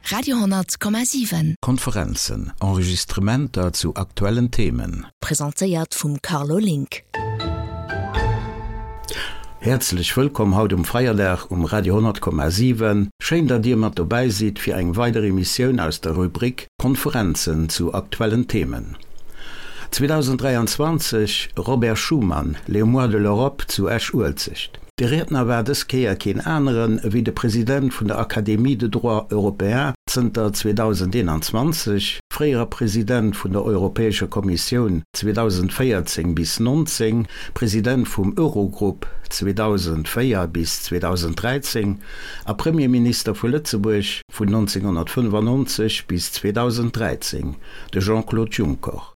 Radio,7. Konferenzen, Enregistrementer zu aktuellen Themen. Presentéiert vum Carlo Link. Häerzlech wëllkomm haut um Feierdag um Radio 10,7. Schéin datt dir mat dobäi sidd fir eng weider Emissioun aus der Rubrik Konferenzen zu aktuellen Themen. 2023 Robert Schuman, Les mois de l'Europe zu Esch-Uelzecht. De Riedner war dës Kéier keen aneren ewéi de President vun der Académie de droit européen zënter 2021, fréiere President vun der Europäescher Kommissioun 2014 bis 19, President vum Eurogrupp 2004 bis 2013 a Premierminister vu Lëtzebuerg vun 1995 bis 2013, de Jean-Claude Juncker.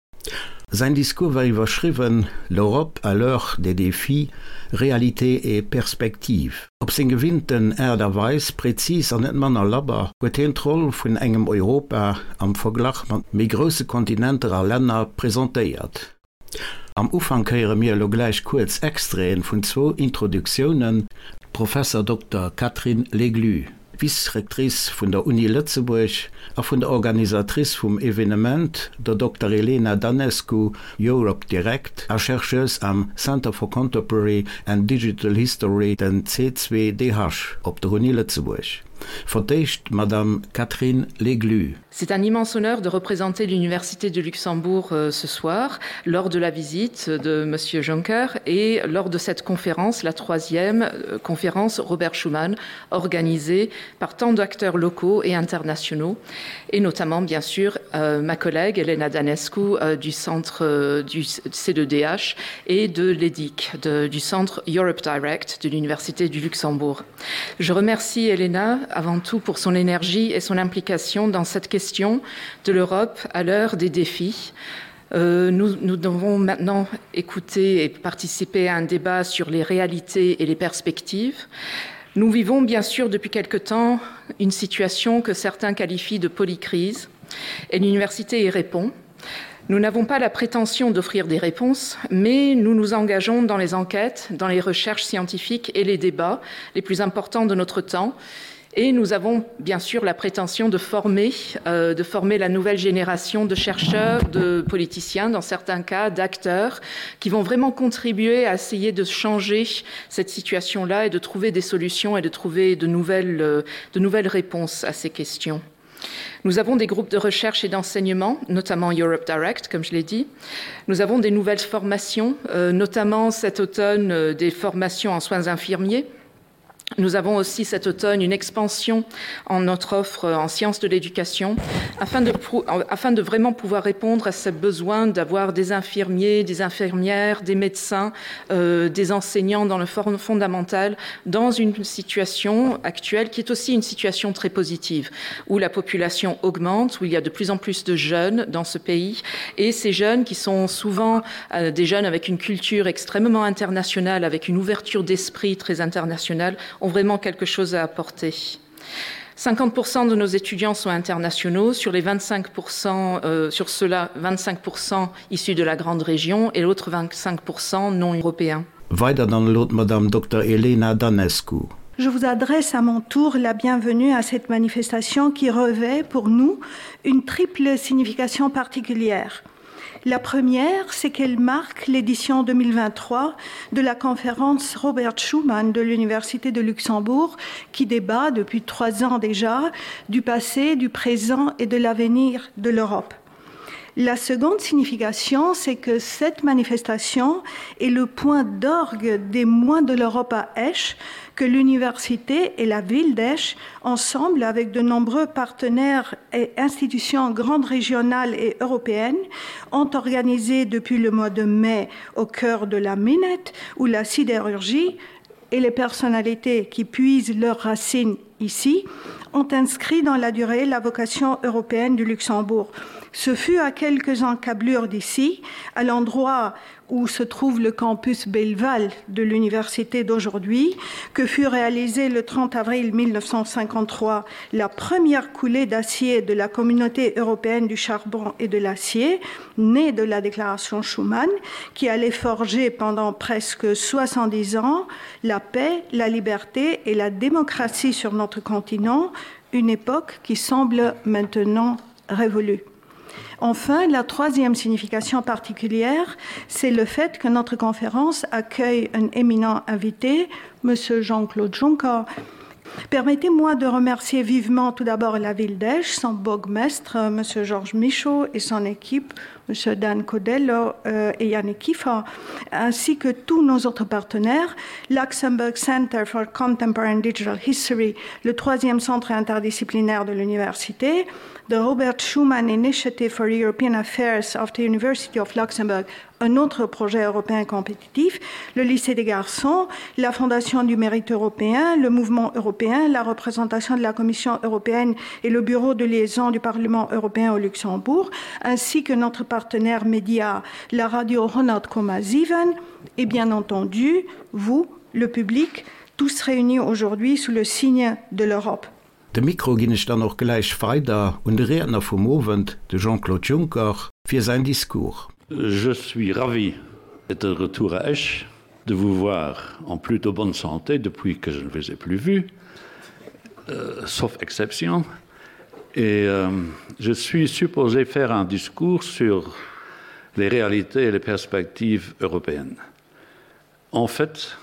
Säin Discours war iwwerschriwwen L'Europe à l'heure des défis, réalités et perspectives. Op seng gewinnten Aart a Weis, prezis an net manner labber, huet hien d'Roll vun engem Europa am Verglach mat méi grousse Kontinenter a Länner presentéiert. Am Ufank héiere mir elo gläich kuerz Extraiten vun zwou Introduktiounen, Professor Dokter Catherine Leglu. Vice-Rectrice vun der Uni Lëtzebuerg a vun der Organisatrice vum Evenement, der Dokter Elena Danescu, Europe Direct a Chercheuse am Center for Contemporary and Digital History, den C2DH, op der Uni Lëtzebuerg. Fir d'éischt d'Madame Catherine Leglu. C'est un immense honneur de représenter l'Université de Luxembourg euh, ce soir lors de la visite de Monsieur Juncker et lors de cette conférence, la troisième euh, conférence Robert Schuman organisée par tant d'acteurs locaux et internationaux et notamment bien sûr euh, ma collègue Elena Danescu euh, du centre euh, du C2DH et de l'EDIC de, du centre Europe Direct de l'Université du Luxembourg. Je remercie Elena avant tout pour son énergie et son implication dans cette question de l'Europe à l'heure des défis. Euh, nous, nous devons maintenant écouter et participer à un débat sur les réalités et les perspectives. Nous vivons bien sûr depuis quelque temps une situation que certains qualifient de polycrise et l'université y répond. Nous n'avons pas la prétention d'offrir des réponses, mais nous nous engageons dans les enquêtes, dans les recherches scientifiques et les débats les plus importants de notre temps. Et nous avons bien sûr la prétention de former, euh, de former la nouvelle génération de chercheurs, de politiciens, dans certains cas d'acteurs, qui vont vraiment contribuer à essayer de changer cette situation-là et de trouver des solutions et de trouver de nouvelles, euh, de nouvelles réponses à ces questions. Nous avons des groupes de recherche et d'enseignement, notamment Europe Direct, comme je l'ai dit. Nous avons des nouvelles formations, euh, notamment cet automne euh, des formations en soins infirmiers. Nous avons aussi cet automne une expansion en notre offre en sciences de l'éducation afin de, afin de vraiment pouvoir répondre à ce besoin d'avoir des infirmiers, des infirmières, des médecins, euh, des enseignants dans le forme fondamental dans une situation actuelle qui est aussi une situation très positive où la population augmente, où il y a de plus en plus de jeunes dans ce pays et ces jeunes qui sont souvent euh, des jeunes avec une culture extrêmement internationale, avec une ouverture d'esprit très internationale, ont vraiment quelque chose à apporter. 50% de nos étudiants sont internationaux, sur les 25% euh, sur cela 25% issus de la grande région et l'autre 25% non européens. Weider dann elo d'Madame Dokter Elena Danescu. Je vous adresse à mon tour la bienvenue à cette manifestation qui revêt pour nous une triple signification particulière. La première, c'est qu'elle marque l'édition 2023 de la conférence Robert Schumann de l'Université de Luxembourg qui débat depuis trois ans déjà du passé, du présent et de l'avenir de l'Europe. La seconde signification, c'est que cette manifestation est le point d'orgue des moins de l'Europe à Esch, que l'université et la ville d'Esch, ensemble avec de nombreux partenaires et institutions grandes régionales et européennes, ont organisé depuis le mois de mai au cœur de la Minette où la sidérurgie et les personnalités qui puisent leurs racines ici ont inscrit dans la durée la vocation européenne du Luxembourg. Ce fut à quelques encablures d'ici, à l'endroit où se trouve le campus Belleval de l'université d'aujourd'hui, que fut réalisée le 30 avril 1953 la première coulée d'acier de la communauté européenne du charbon et de l'acier, née de la déclaration Schuman, qui allait forger pendant presque 70 ans la paix, la liberté et la démocratie sur notre continent. Une époque qui semble maintenant révolue. Enfin, la troisième signification particulière, c'est le fait que notre conférence accueille un éminent invité, M. Jean-Claude Juncker. Permettez-moi de remercier vivement tout d'abord la ville d'Esch, son bourgmestre, M. Georges Michaud et son équipe, M. Dan Codello euh, et Yannick Kiefer, ainsi que tous nos autres partenaires, Luxembourg Center for Contemporary Digital History, le troisième centre interdisciplinaire de l'université, the Robert Schuman Initiative for European Affairs of the University of Luxembourg, un autre projet européen compétitif, le lycée des garçons, la Fondation du mérite européen, le mouvement européen, la représentation de la Commission européenne et le bureau de liaison du Parlement européen au Luxembourg, ainsi que notre partenaire média, la radio Ronald Komaziven, et bien entendu, vous, le public, tous réunis aujourd'hui sous le signe de l'Europe. De Mikro ginn ech dann och gläich weider un de Riedner vum Owend, de Jean-Claude Juncker, fir säin Discours. Je suis ravi d'être de retour à Esch, de vous voir en plutôt bonne santé depuis que je ne vous ai plus vu, euh, sauf exception. Et euh, je suis supposé faire un discours sur les réalités et les perspectives européennes. En fait,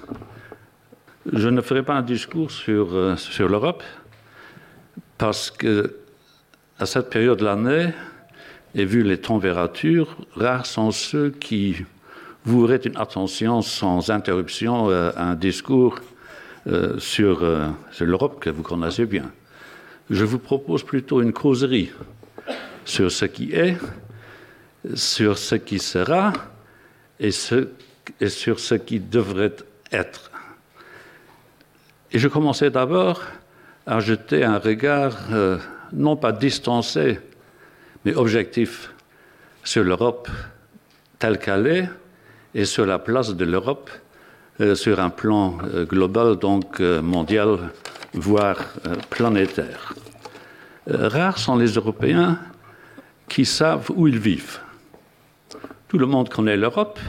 je ne ferai pas un discours sur, euh, sur l'Europe parce que à cette période de l'année et vu les températures, rares sont ceux qui voueraient une attention sans interruption euh, à un discours euh, sur, euh, sur l'Europe que vous connaissez bien. Je vous propose plutôt une causerie sur ce qui est, sur ce qui sera et, ce, et sur ce qui devrait être. Et je commençais d'abord à jeter un regard euh, non pas distancé, mais objectif sur l'Europe telle qu'elle est et sur la place de l'Europe euh, sur un plan euh, global, donc euh, mondial, voire euh, planétaire. Euh, rares sont les Européens qui savent où ils vivent. Tout le monde connaît l'Europe,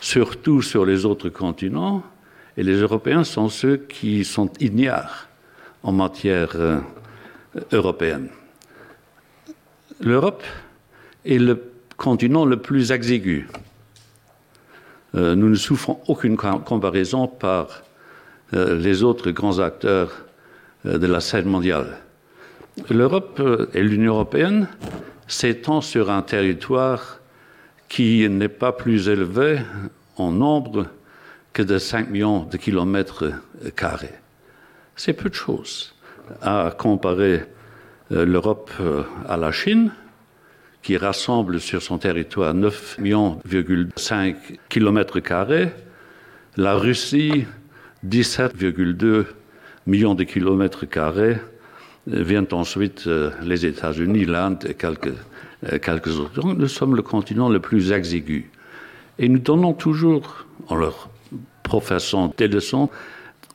surtout sur les autres continents, et les Européens sont ceux qui sont ignares en matière euh, européenne. L'Europe est le continent le plus exigu. Euh, nous ne souffrons aucune comparaison par euh, les autres grands acteurs euh, de la scène mondiale. L'Europe euh, et l'Union européenne s'étend sur un territoire qui n'est pas plus élevé en nombre que de 5 millions de kilomètres carrés. C'est peu de choses à comparer euh, l'Europe euh, à la Chine, qui rassemble sur son territoire 9,5 millions kilomètres carrés, la Russie 17,2 millions de kilomètres carrés, euh, viennent ensuite les États-Unis, l'Inde et quelques, quelques autres. Donc, nous sommes le continent le plus exigu. Et nous donnons toujours, en leur professant des leçons,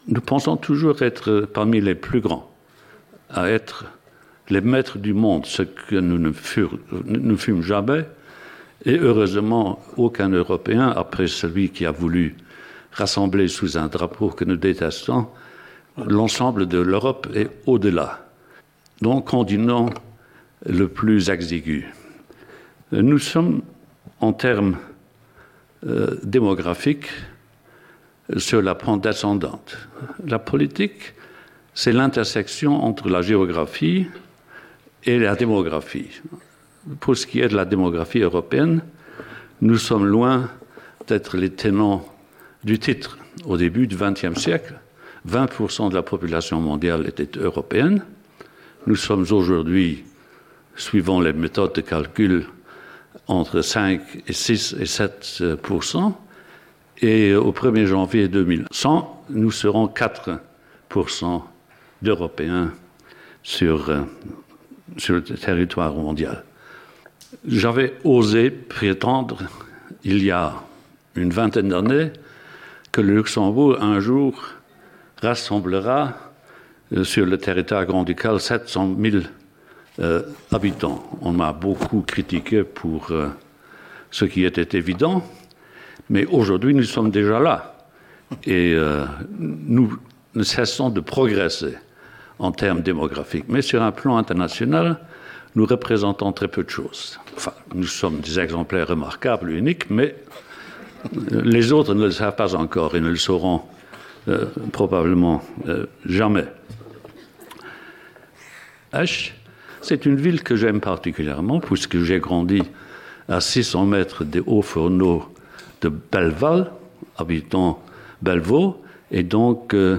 nous pensons toujours être parmi les plus grands, à être les maîtres du monde, ce que nous ne, fur, ne fûmes jamais. Et heureusement, aucun Européen, après celui qui a voulu rassembler sous un drapeau que nous détestons, l'ensemble de l'Europe est au-delà. Donc, continent le plus exigu. Nous sommes, en termes euh, démographiques, sur la pente descendante. La politique, c'est l'intersection entre la géographie et la démographie. Pour ce qui est de la démographie européenne, nous sommes loin d'être les tenants du titre. Au début du XXe siècle, 20 de la population mondiale était européenne. Nous sommes aujourd'hui, suivant les méthodes de calcul, entre 5 et 6 et 7 et au 1er janvier 2100, nous serons 4 d'Européens sur, euh, sur le territoire mondial. J'avais osé prétendre, il y a une vingtaine d'années, que le Luxembourg un jour rassemblera euh, sur le territoire grand-ducal 700 000 euh, habitants. On m'a beaucoup critiqué pour euh, ce qui était évident, mais aujourd'hui nous sommes déjà là et euh, nous ne cessons de progresser. en termes démographiques. Mais sur un plan international, nous représentons très peu de choses. Enfin, nous sommes des exemplaires remarquables, uniques, mais les autres ne le savent pas encore et ne le sauront euh, probablement euh, jamais. H, c'est une ville que j'aime particulièrement puisque j'ai grandi à 600 mètres des hauts fourneaux de Belleval, habitant Bellevaux, et donc euh,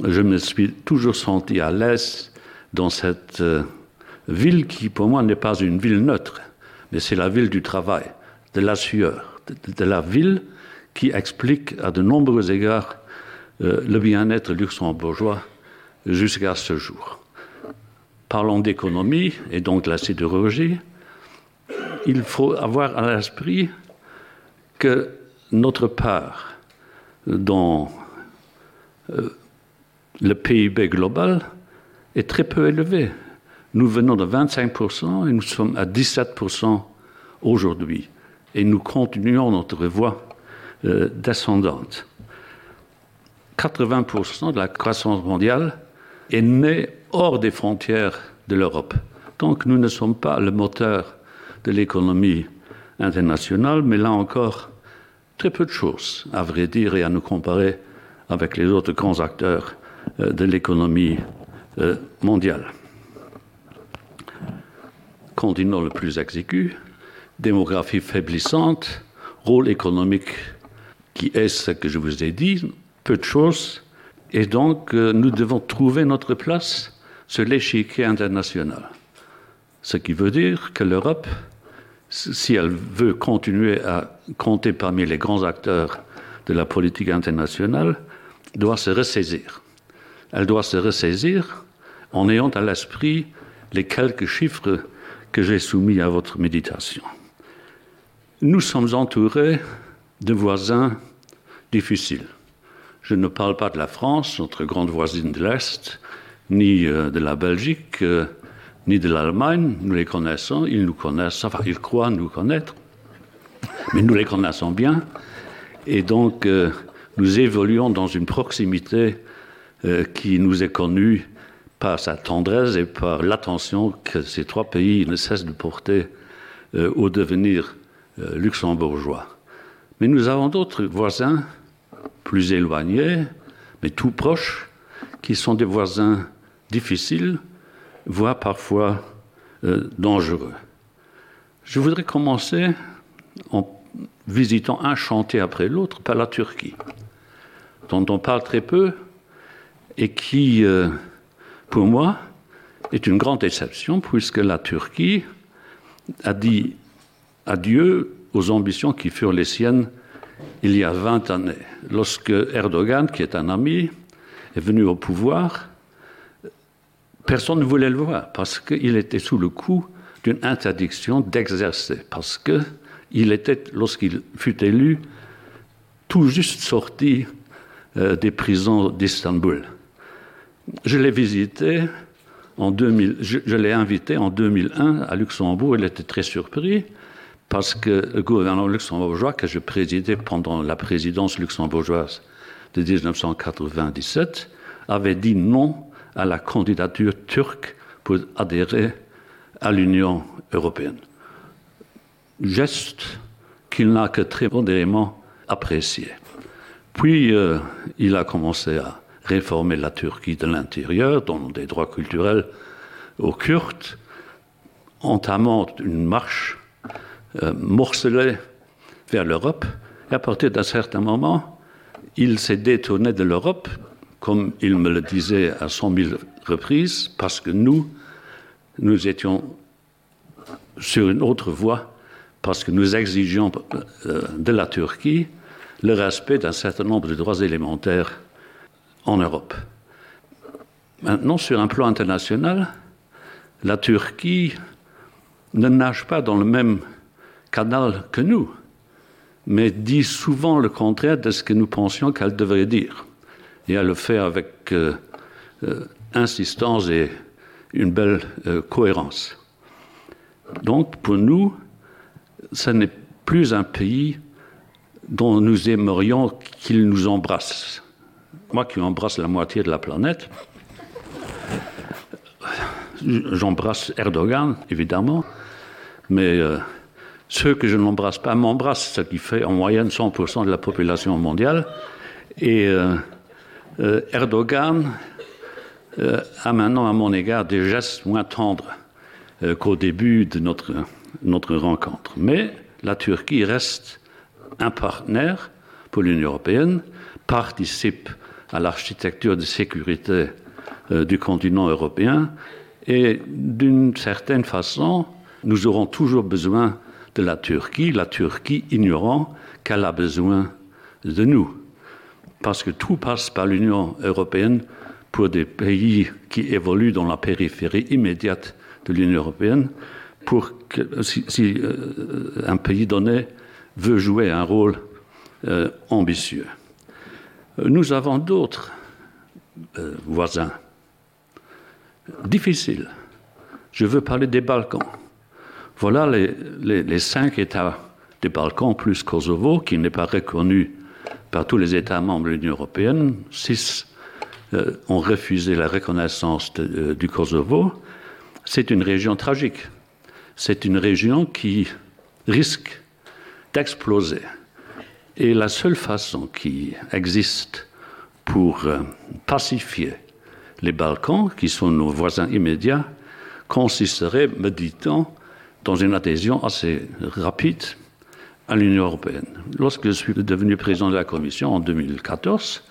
je me suis toujours senti à l'aise dans cette euh, ville qui pour moi n'est pas une ville neutre, mais c'est la ville du travail, de la sueur, de, de la ville qui explique à de nombreux égards euh, le bien-être luxembourgeois jusqu'à ce jour. Parlons d'économie et donc de la sidérurgie, il faut avoir à l'esprit que notre part dans euh, le PIB global est très peu élevé. Nous venons de 25% et nous sommes à 17% aujourd'hui et nous continuons notre voie euh, descendante. 80% de la croissance mondiale est née hors des frontières de l'Europe. Donc nous ne sommes pas le moteur de l'économie internationale, mais là encore très peu de choses à vrai dire et à nous comparer avec les autres grands acteurs euh, de l'économie euh, mondiale. Continent le plus exigu, démographie faiblissante, rôle économique qui est ce que je vous ai dit, peu de choses, et donc euh, nous devons trouver notre place sur l'échiquier international. Ce qui veut dire que l'Europe, si elle veut continuer à compter parmi les grands acteurs de la politique internationale, doit se ressaisir. Elle doit se ressaisir en ayant à l'esprit les quelques chiffres que j'ai soumis à votre méditation. Nous sommes entourés de voisins difficiles. Je ne parle pas de la France, notre grande voisine de l'Est, ni euh, de la Belgique, euh, ni de l'Allemagne. Nous les connaissons, ils nous connaissent, enfin ils croient nous connaître, mais nous les connaissons bien. Et donc euh, nous évoluons dans une proximité qui nous est connue par sa tendresse et par l'attention que ces trois pays ne cessent de porter au devenir luxembourgeois. Mais nous avons d'autres voisins plus éloignés, mais tout proches, qui sont des voisins difficiles, voire parfois euh, dangereux. Je voudrais commencer en visitant un chantier après l'autre par la Turquie, dont on parle très peu et qui, euh, pour moi, est une grande déception puisque la Turquie a dit adieu aux ambitions qui furent les siennes il y a 20 années. Lorsque Erdogan, qui est un ami, est venu au pouvoir, personne ne voulait le voir parce qu'il était sous le coup d'une interdiction d'exercer, parce qu'il était, lorsqu'il fut élu, tout juste sorti euh, des prisons d'Istanbul. Je l'ai visité en 2000, je, je l'ai invité en 2001 à Luxembourg, il était très surpris parce que le gouvernement luxembourgeois que je présidais pendant la présidence luxembourgeoise de 1997 avait dit non à la candidature turque pour adhérer à l'Union européenne. Geste qu'il n'a que très modérément apprécié. Puis euh, il a commencé à réformer la Turquie de l'intérieur, donnant des droits culturels aux Kurdes, entamant une marche euh, morcelée vers l'Europe. Et à partir d'un certain moment, il s'est détourné de l'Europe, comme il me le disait à cent mille reprises, parce que nous, nous étions sur une autre voie, parce que nous exigions euh, de la Turquie le respect d'un certain nombre de droits élémentaires en Europe. Maintenant, sur un plan international, la Turquie ne nage pas dans le même canal que nous, mais dit souvent le contraire de ce que nous pensions qu'elle devrait dire. Et elle le fait avec euh, euh, insistance et une belle euh, cohérence. Donc pour nous, ce n'est plus un pays dont nous aimerions qu'il nous embrasse. Moi qui embrasse la moitié de la planète. J'embrasse Erdogan, évidemment, mais euh, ceux que je n'embrasse pas m'embrassent, ce qui fait en moyenne 100% de la population mondiale. Et euh, euh, Erdogan euh, a maintenant à mon égard des gestes moins tendres euh, qu'au début de notre, notre rencontre. Mais la Turquie reste un partenaire pour l'Union européenne, participe à l'architecture de sécurité euh, du continent européen et d'une certaine façon, nous aurons toujours besoin de la Turquie, la Turquie ignorant qu'elle a besoin de nous. Parce que tout passe par l'Union européenne pour des pays qui évoluent dans la périphérie immédiate de l'Union européenne, pour que si, si euh, un pays donné veut jouer un rôle euh, ambitieux. Nous avons d'autres euh, voisins difficiles. Je veux parler des Balkans. Voilà les, les, les cinq États des Balkans plus Kosovo, qui n'est pas reconnu par tous les États membres de l'Union européenne. Six euh, ont refusé la reconnaissance de, euh, du Kosovo. C'est une région tragique. C'est une région qui risque d'exploser. Et la seule façon qui existe pour euh, pacifier les Balkans, qui sont nos voisins immédiats, consisterait, me dit-on, dans une adhésion assez rapide à l'Union européenne. Lorsque je suis devenu président de la Commission en 2014,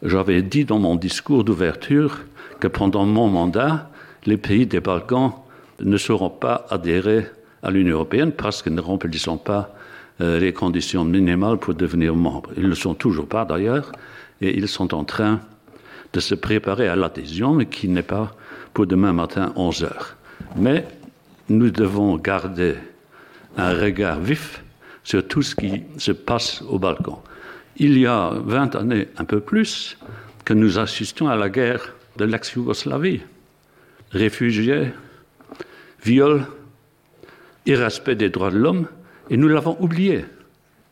j'avais dit dans mon discours d'ouverture que pendant mon mandat, les pays des Balkans ne seront pas adhérés à l'Union européenne parce qu'ils ne remplissent pas euh, les conditions minimales pour devenir membres. Ils ne le sont toujours pas d'ailleurs et ils sont en train de se préparer à l'adhésion, mais qui n'est pas pour demain matin 11 heures. Mais nous devons garder un regard vif sur tout ce qui se passe au Balkan. Il y a 20 années, un peu plus, que nous assistons à la guerre de l'ex-Yougoslavie. Réfugiés, viols, irrespect des droits de l'homme, et nous l'avons oublié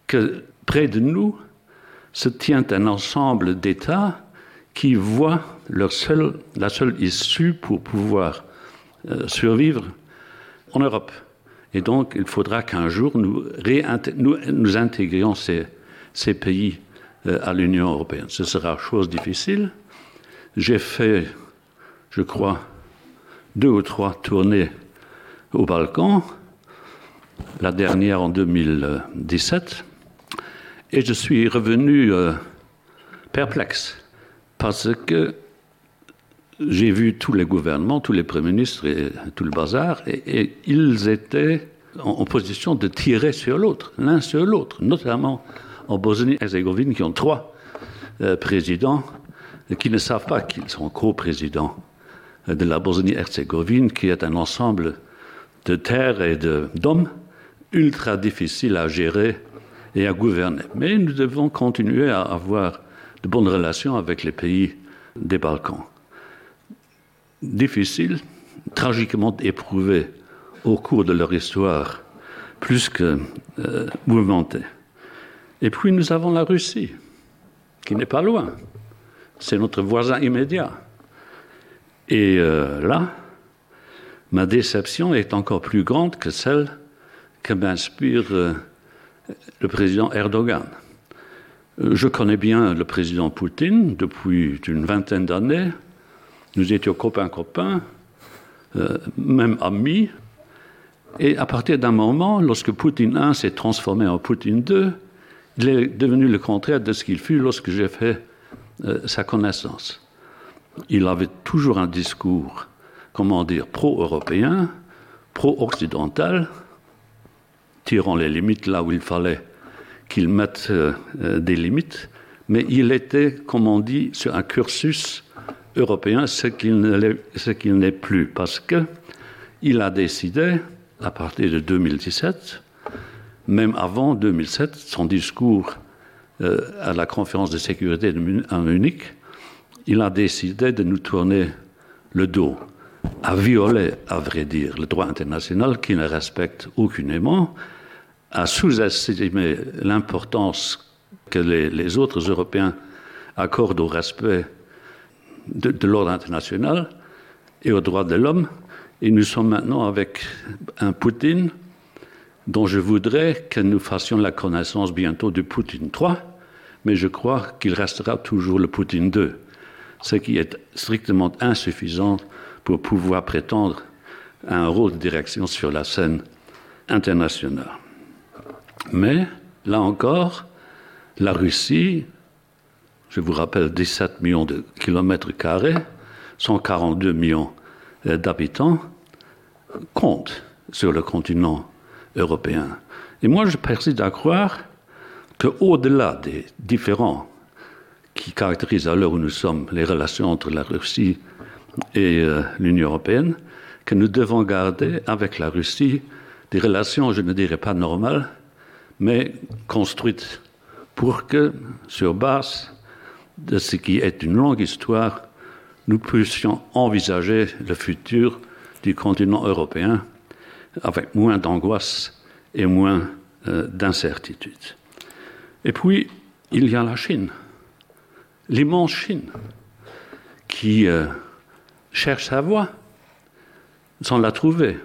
que près de nous se tient un ensemble d'États qui voient leur seul, la seule issue pour pouvoir euh, survivre en Europe. Et donc il faudra qu'un jour nous, nous, nous intégrions ces, ces pays euh, à l'Union européenne. Ce sera chose difficile. J'ai fait, je crois, deux ou trois tournées au Balkan, la dernière en 2017, et je suis revenu euh, perplexe parce que j'ai vu tous les gouvernements, tous les premiers ministres et tout le bazar, et, et ils étaient en, en position de tirer sur l'autre, l'un sur l'autre, notamment en Bosnie-Herzégovine qui ont trois euh, présidents qui ne savent pas qu'ils sont co-présidents de la Bosnie-Herzégovine, qui est un ensemble de terres et d'hommes ultra difficile à gérer et à gouverner. Mais nous devons continuer à avoir de bonnes relations avec les pays des Balkans. Difficile, tragiquement éprouvés au cours de leur histoire, plus que euh, mouvementée. Et puis nous avons la Russie, qui n'est pas loin. C'est notre voisin immédiat. Et euh, là, ma déception est encore plus grande que celle que m'inspire euh, le président Erdogan. Euh, je connais bien le président Poutine depuis une vingtaine d'années. Nous étions copains copains, euh, même amis. Et à partir d'un moment, lorsque Poutine I s'est transformé en Poutine II, il est devenu le contraire de ce qu'il fut lorsque j'ai fait euh, sa connaissance. Il avait toujours un discours, comment dire, pro-européen, pro-occidental, tirant les limites là où il fallait qu'il mette euh, euh, des limites, mais il était, comme on dit, sur un cursus européen, ce qu'il n'est plus, parce que il a décidé, à partir de 2017, même avant 2007, son discours euh, à la conférence de sécurité de Mun à Munich, il a décidé de nous tourner le dos, à violer, à vrai dire, le droit international qui ne respecte aucunement, a sous-estimé l'importance que les, les autres Européens accordent au respect de, de l'ordre international. et aux droits de l'homme. Et nous sommes maintenant avec un Poutine dont je voudrais que nous fassions la connaissance bientôt du Poutine 3, mais je crois qu'il restera toujours le Poutine 2, ce qui est strictement insuffisant pour pouvoir prétendre à un rôle de direction sur la scène internationale. Mais, là encore, la Russie, je vous rappelle 17 millions de kilomètres carrés, 142 millions euh, d'habitants, compte sur le continent européen. Et moi, je persiste à croire que au-delà des différends qui caractérisent à l'heure où nous sommes les relations entre la Russie et euh, l'Union européenne, que nous devons garder avec la Russie des relations, je ne dirais pas normales, mais construites pour que, sur base de ce qui est une longue histoire, nous puissions envisager le futur du continent européen avec moins d'angoisse et moins euh, d'incertitude. Et puis, il y a la Chine, l'immense Chine, qui euh, cherche sa voie sans la trouver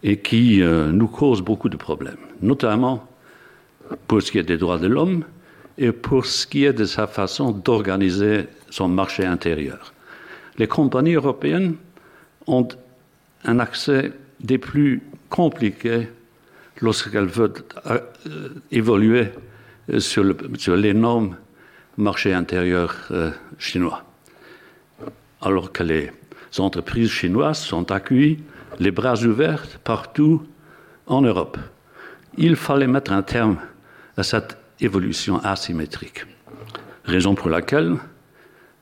et qui euh, nous cause beaucoup de problèmes, notamment pour ce qui est des droits de l'homme et pour ce qui est de sa façon d'organiser son marché intérieur. Les compagnies européennes ont un accès des plus compliqués lorsqu'elles veulent euh, évoluer sur l'énorme marché intérieur euh, chinois. Alors que les entreprises chinoises sont accueillies les bras ouverts partout en Europe. Il fallait mettre un terme à cette évolution asymétrique. Raison pour laquelle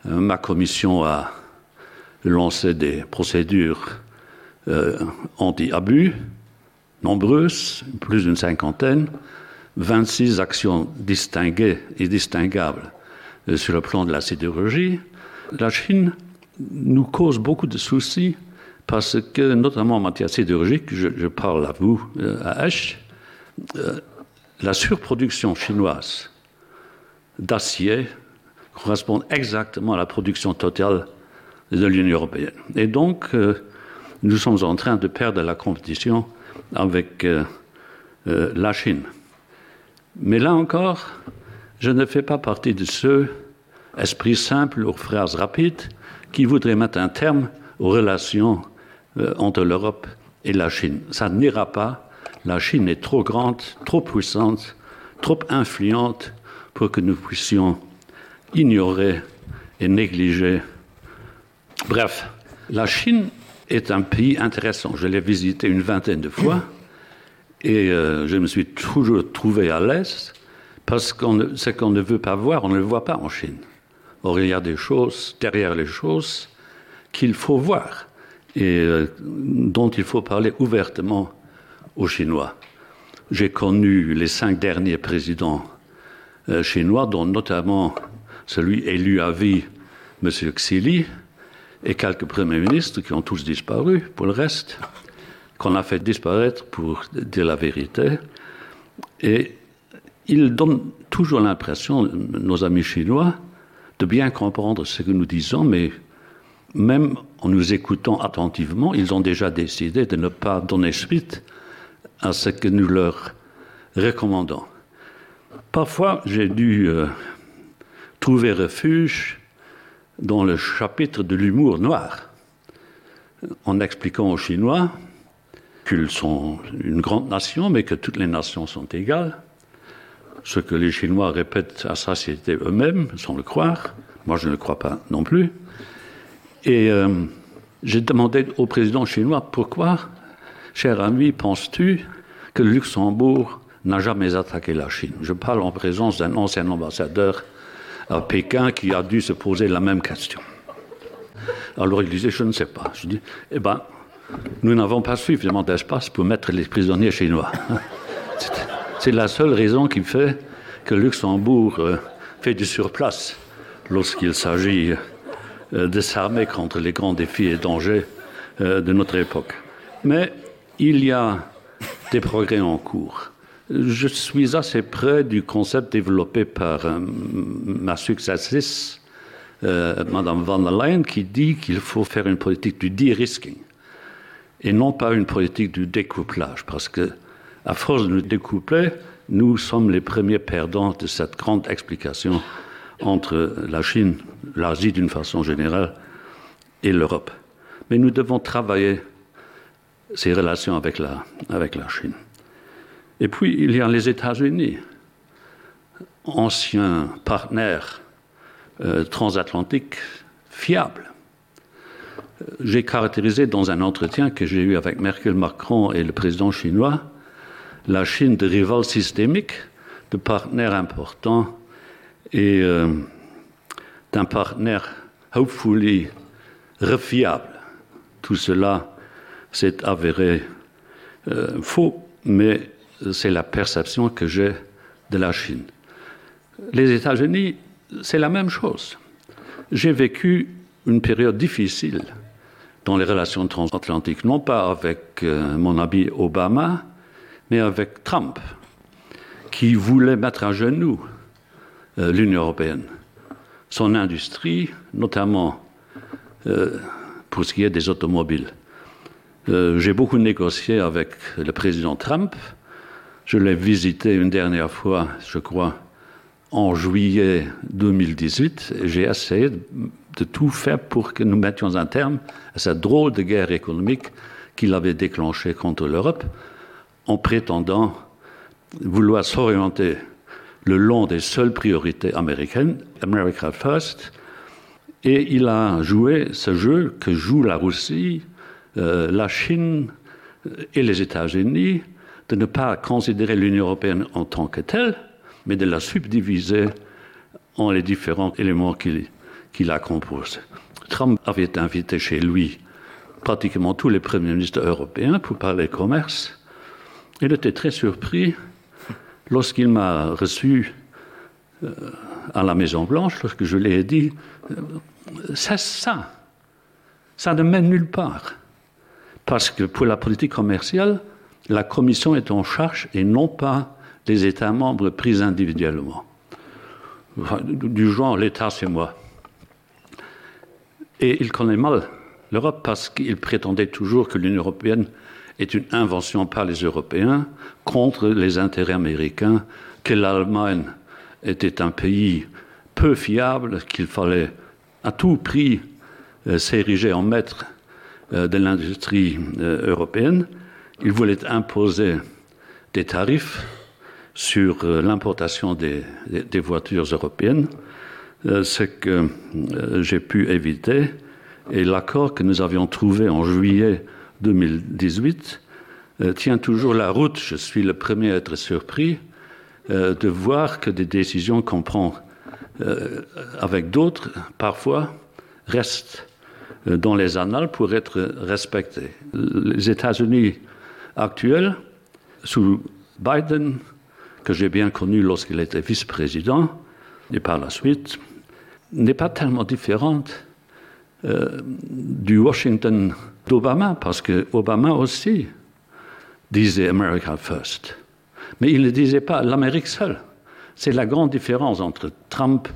euh, ma commission a lancé des procédures euh, anti-abus nombreuses, plus d'une cinquantaine, 26 actions distinguées et distinguables euh, sur le plan de la sidérurgie. La Chine nous cause beaucoup de soucis parce que, notamment en matière sidérurgique, je, je parle à vous, euh, à H, euh, la surproduction chinoise d'acier correspond exactement à la production totale de l'Union européenne. Et donc, euh, nous sommes en train de perdre la compétition avec euh, euh, la Chine. Mais là encore, je ne fais pas partie de ceux, esprits simples ou phrases rapides, qui voudraient mettre un terme aux relations euh, entre l'Europe et la Chine. Ça n'ira pas. La Chine est trop grande, trop puissante, trop influente pour que nous puissions ignorer et négliger. Bref, la Chine est un pays intéressant. Je l'ai visité une vingtaine de fois et euh, je me suis toujours trouvé à l'aise parce qu'on ce qu'on ne veut pas voir, on ne le voit pas en Chine. Or il y a des choses derrière les choses qu'il faut voir et euh, dont il faut parler ouvertement aux Chinois. J'ai connu les cinq derniers présidents euh, chinois, dont notamment celui élu à vie, M. Xili, et quelques premiers ministres qui ont tous disparu pour le reste, qu'on a fait disparaître pour dire la vérité. Et ils donnent toujours l'impression, nos amis chinois, de bien comprendre ce que nous disons, mais même en nous écoutant attentivement, ils ont déjà décidé de ne pas donner suite à ce que nous leur recommandons. Parfois, j'ai dû euh, trouver refuge dans le chapitre de l'humour noir, en expliquant aux Chinois qu'ils sont une grande nation, mais que toutes les nations sont égales, ce que les Chinois répètent à satiété eux-mêmes, sans le croire, moi je ne le crois pas non plus. Et euh, j'ai demandé au président chinois pourquoi, cher ami, penses-tu que le Luxembourg n'a jamais attaqué la Chine Je parle en présence d'un ancien ambassadeur à Pékin qui a dû se poser la même question. Alors il disait je ne sais pas. Je dis eh ben nous n'avons pas suffisamment d'espace pour mettre les prisonniers chinois. C'est la seule raison qui fait que Luxembourg euh, fait du surplace lorsqu'il s'agit euh, de s'armer contre les grands défis et dangers euh, de notre époque. Mais il y a des progrès en cours. Je suis assez près du concept développé par euh, ma successrice. euh, Madame van der Leyen qui dit qu'il faut faire une politique du de-risking et non pas une politique du découplage parce que à force de nous découpler, nous sommes les premiers perdants de cette grande explication entre la Chine, l'Asie d'une façon générale et l'Europe. Mais nous devons travailler ces relations avec la, avec la Chine. Et puis il y a les États-Unis, anciens partenaires euh, transatlantiques fiables. J'ai caractérisé dans un entretien que j'ai eu avec Merkel Macron et le président chinois la Chine de rival systémique, de partenaire important et euh, d'un partenaire hopefully refiable. Tout cela s'est avéré euh, faux, mais c'est la perception que j'ai de la Chine. Les États-Unis, c'est la même chose. J'ai vécu une période difficile dans les relations transatlantiques, non pas avec euh, mon ami Obama, mais avec Trump, qui voulait mettre à genoux euh, l'Union européenne, son industrie, notamment euh, pour ce qui est des automobiles. Euh, J'ai beaucoup négocié avec le président Trump. Je l'ai visité une dernière fois, je crois, en juillet 2018. J'ai essayé de tout faire pour que nous mettions un terme à cette drôle de guerre économique qu'il avait déclenchée contre l'Europe en prétendant vouloir s'orienter le long des seules priorités américaines, America First, et il a joué ce jeu que joue la Russie, euh, la Chine et les États-Unis, de ne pas considérer l'Union européenne en tant que telle, mais de la subdiviser en les différents éléments qui, qui la composent. Trump avait invité chez lui pratiquement tous les premiers ministres européens pour parler commerce. Il était très surpris lorsqu'il m'a reçu euh, à la Maison Blanche, lorsque je lui ai dit euh, c'est ça, ça ne mène nulle part. Parce que pour la politique commerciale, la Commission est en charge et non pas les États membres pris individuellement. Enfin, du genre l'État c'est moi. Et il connaît mal l'Europe parce qu'il prétendait toujours que l'Union européenne est une invention par les Européens contre les intérêts américains, que l'Allemagne était un pays peu fiable, qu'il fallait à tout prix euh, s'ériger en maître euh, de l'industrie euh, européenne. Il voulait imposer des tarifs sur l'importation des, des, des voitures européennes, ce que j'ai pu éviter et l'accord que nous avions trouvé en juillet 2018 tient toujours la route. Je suis le premier à être surpris de voir que des décisions qu'on prend euh, avec d'autres, parfois, restent euh, dans les annales pour être respectées. Les États-Unis actuels, sous Biden, que j'ai bien connu lorsqu'il était vice-président, et par la suite, n'est pas tellement différente euh, du Washington d'Obama, parce que Obama aussi disait America First. Mais il ne disait pas l'Amérique seule. C'est la grande différence entre Trump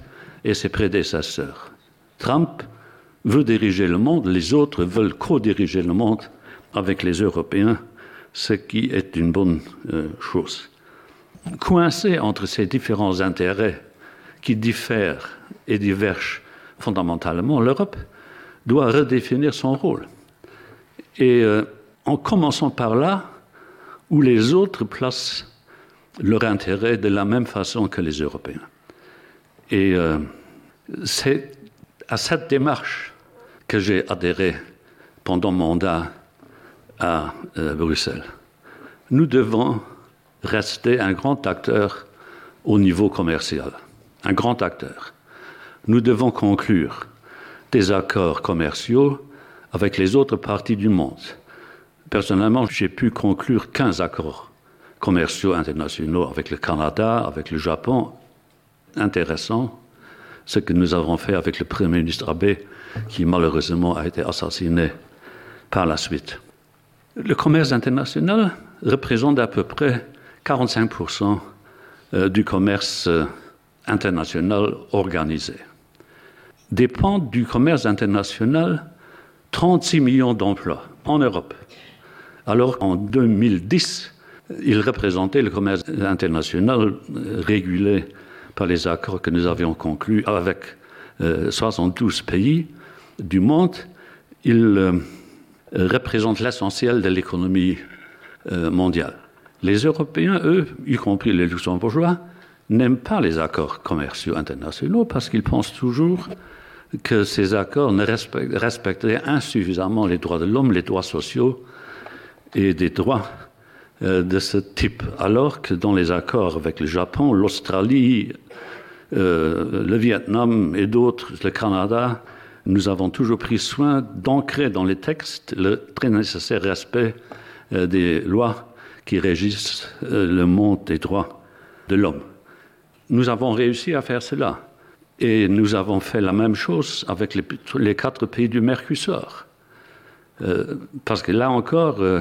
et ses prédécesseurs. Trump veut diriger le monde, les autres veulent co-diriger le monde avec les Européens, ce qui est une bonne euh, chose. Coincé entre ces différents intérêts qui diffèrent et divergent fondamentalement, l'Europe doit redéfinir son rôle. Et euh, en commençant par là où les autres placent leur intérêt de la même façon que les Européens. Et euh, c'est à cette démarche que j'ai adhéré pendant mon mandat à euh, Bruxelles. Nous devons rester un grand acteur au niveau commercial, un grand acteur. Nous devons conclure des accords commerciaux avec les autres parties du monde. Personnellement, j'ai pu conclure 15 accords commerciaux internationaux avec le Canada, avec le Japon. Intéressant ce que nous avons fait avec le Premier ministre Abbé, qui malheureusement a été assassiné par la suite. Le commerce international représente à peu près 45 euh, du commerce euh, international organisé. dépendent du commerce international 36 millions d'emplois en Europe. Alors en 2010, il représentait le commerce international régulé par les accords que nous avions conclus avec euh, 72 pays du monde. Il euh, représente l'essentiel de l'économie euh, mondiale. Les Européens, eux, y compris les Luxembourgeois, n'aiment pas les accords commerciaux internationaux parce qu'ils pensent toujours que ces accords ne respecteraient insuffisamment les droits de l'homme, les droits sociaux et des droits euh, de ce type, alors que dans les accords avec le Japon, l'Australie, euh, le Vietnam et d'autres, le Canada, nous avons toujours pris soin d'ancrer dans les textes le très nécessaire respect euh, des lois qui régissent euh, le monde des droits de l'homme. Nous avons réussi à faire cela et nous avons fait la même chose avec les, les quatre pays du Mercusor. Euh, parce que là encore, euh,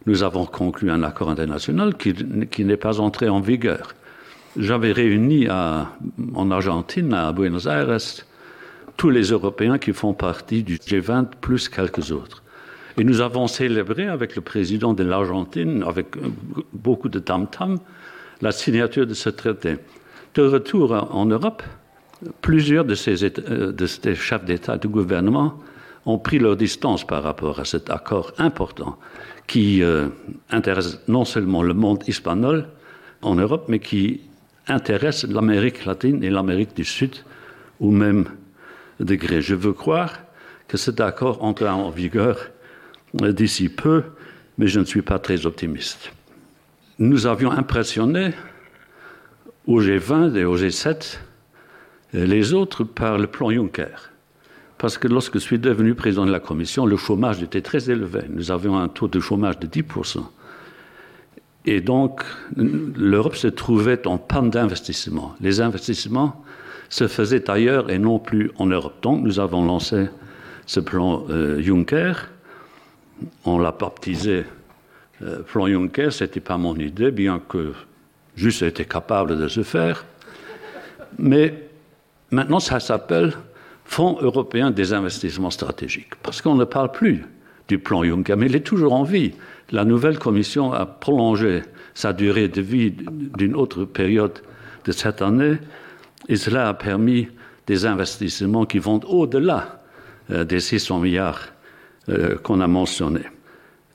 nous avons conclu un accord international qui, qui n'est pas entré en vigueur. J'avais réuni à, en Argentine, à Buenos Aires, tous les Européens qui font partie du G20 plus quelques autres. Et nous avons célébré avec le président de l'Argentine, avec beaucoup de tam-tam, la signature de ce traité. De retour en Europe, plusieurs de ces, euh, de ces chefs d'État et de gouvernement ont pris leur distance par rapport à cet accord important qui euh, intéresse non seulement le monde hispanol en Europe, mais qui intéresse l'Amérique latine et l'Amérique du Sud au même degré. Je veux croire que cet accord entrera en vigueur euh, d'ici peu, mais je ne suis pas très optimiste. Nous avions impressionné au G20 et au G7 les autres par le plan Juncker. Parce que lorsque je suis devenu président de la commission, le chômage était très élevé. Nous avions un taux de chômage de 10%. Et donc l'Europe se trouvait en panne d'investissement. Les investissements se faisaient ailleurs et non plus en Europe. Donc nous avons lancé ce plan euh, Juncker. On l'a baptisé euh, plan Juncker, ce n'était pas mon idée, bien que juste été capable de se faire. Mais maintenant ça s'appelle Fonds européen des investissements stratégiques, parce qu'on ne parle plus du plan Juncker, mais il est toujours en vie. La nouvelle commission a prolongé sa durée de vie d'une autre période de cette année et cela a permis des investissements qui vont au-delà euh, des 600 milliards euh, qu'on a mentionnés.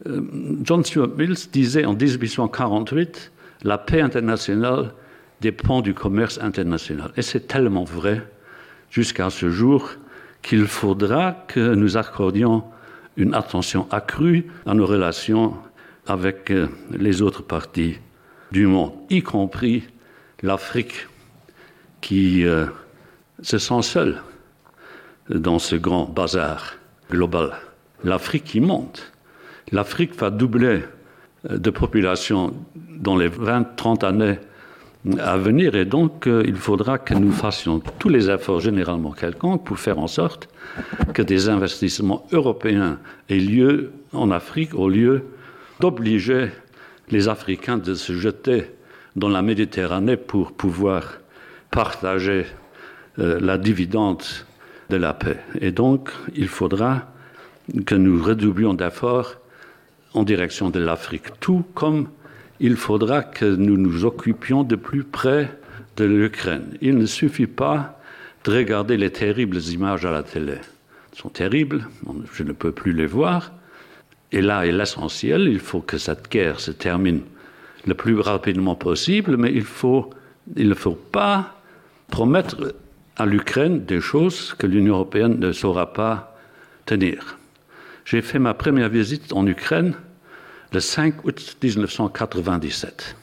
Euh, John Stuart Mills disait en 1848 la paix internationale dépend du commerce international. Et c'est tellement vrai jusqu'à ce jour qu'il faudra que nous accordions une attention accrue à nos relations avec euh, les autres parties du monde, y compris l'Afrique qui euh, se sent seule dans ce grand bazar global. L'Afrique qui monte. L'Afrique va doubler euh, de population dans les 20-30 années à venir et donc euh, il faudra que nous fassions tous les efforts généralement quelconques pour faire en sorte que des investissements européens aient lieu en Afrique au lieu d'obliger les Africains de se jeter dans la Méditerranée pour pouvoir partager euh, la dividende de la paix. Et donc il faudra que nous redoublions d'efforts en direction de l'Afrique, tout comme il faudra que nous nous occupions de plus près de l'Ukraine. Il ne suffit pas de regarder les terribles images à la télé. Elles sont terribles, je ne peux plus les voir. Et là est l'essentiel, il faut que cette guerre se termine le plus rapidement possible, mais il, faut, il ne faut pas promettre à l'Ukraine des choses que l'Union européenne ne saura pas tenir. J'ai fait ma première visite en Ukraine le 5 août 1997,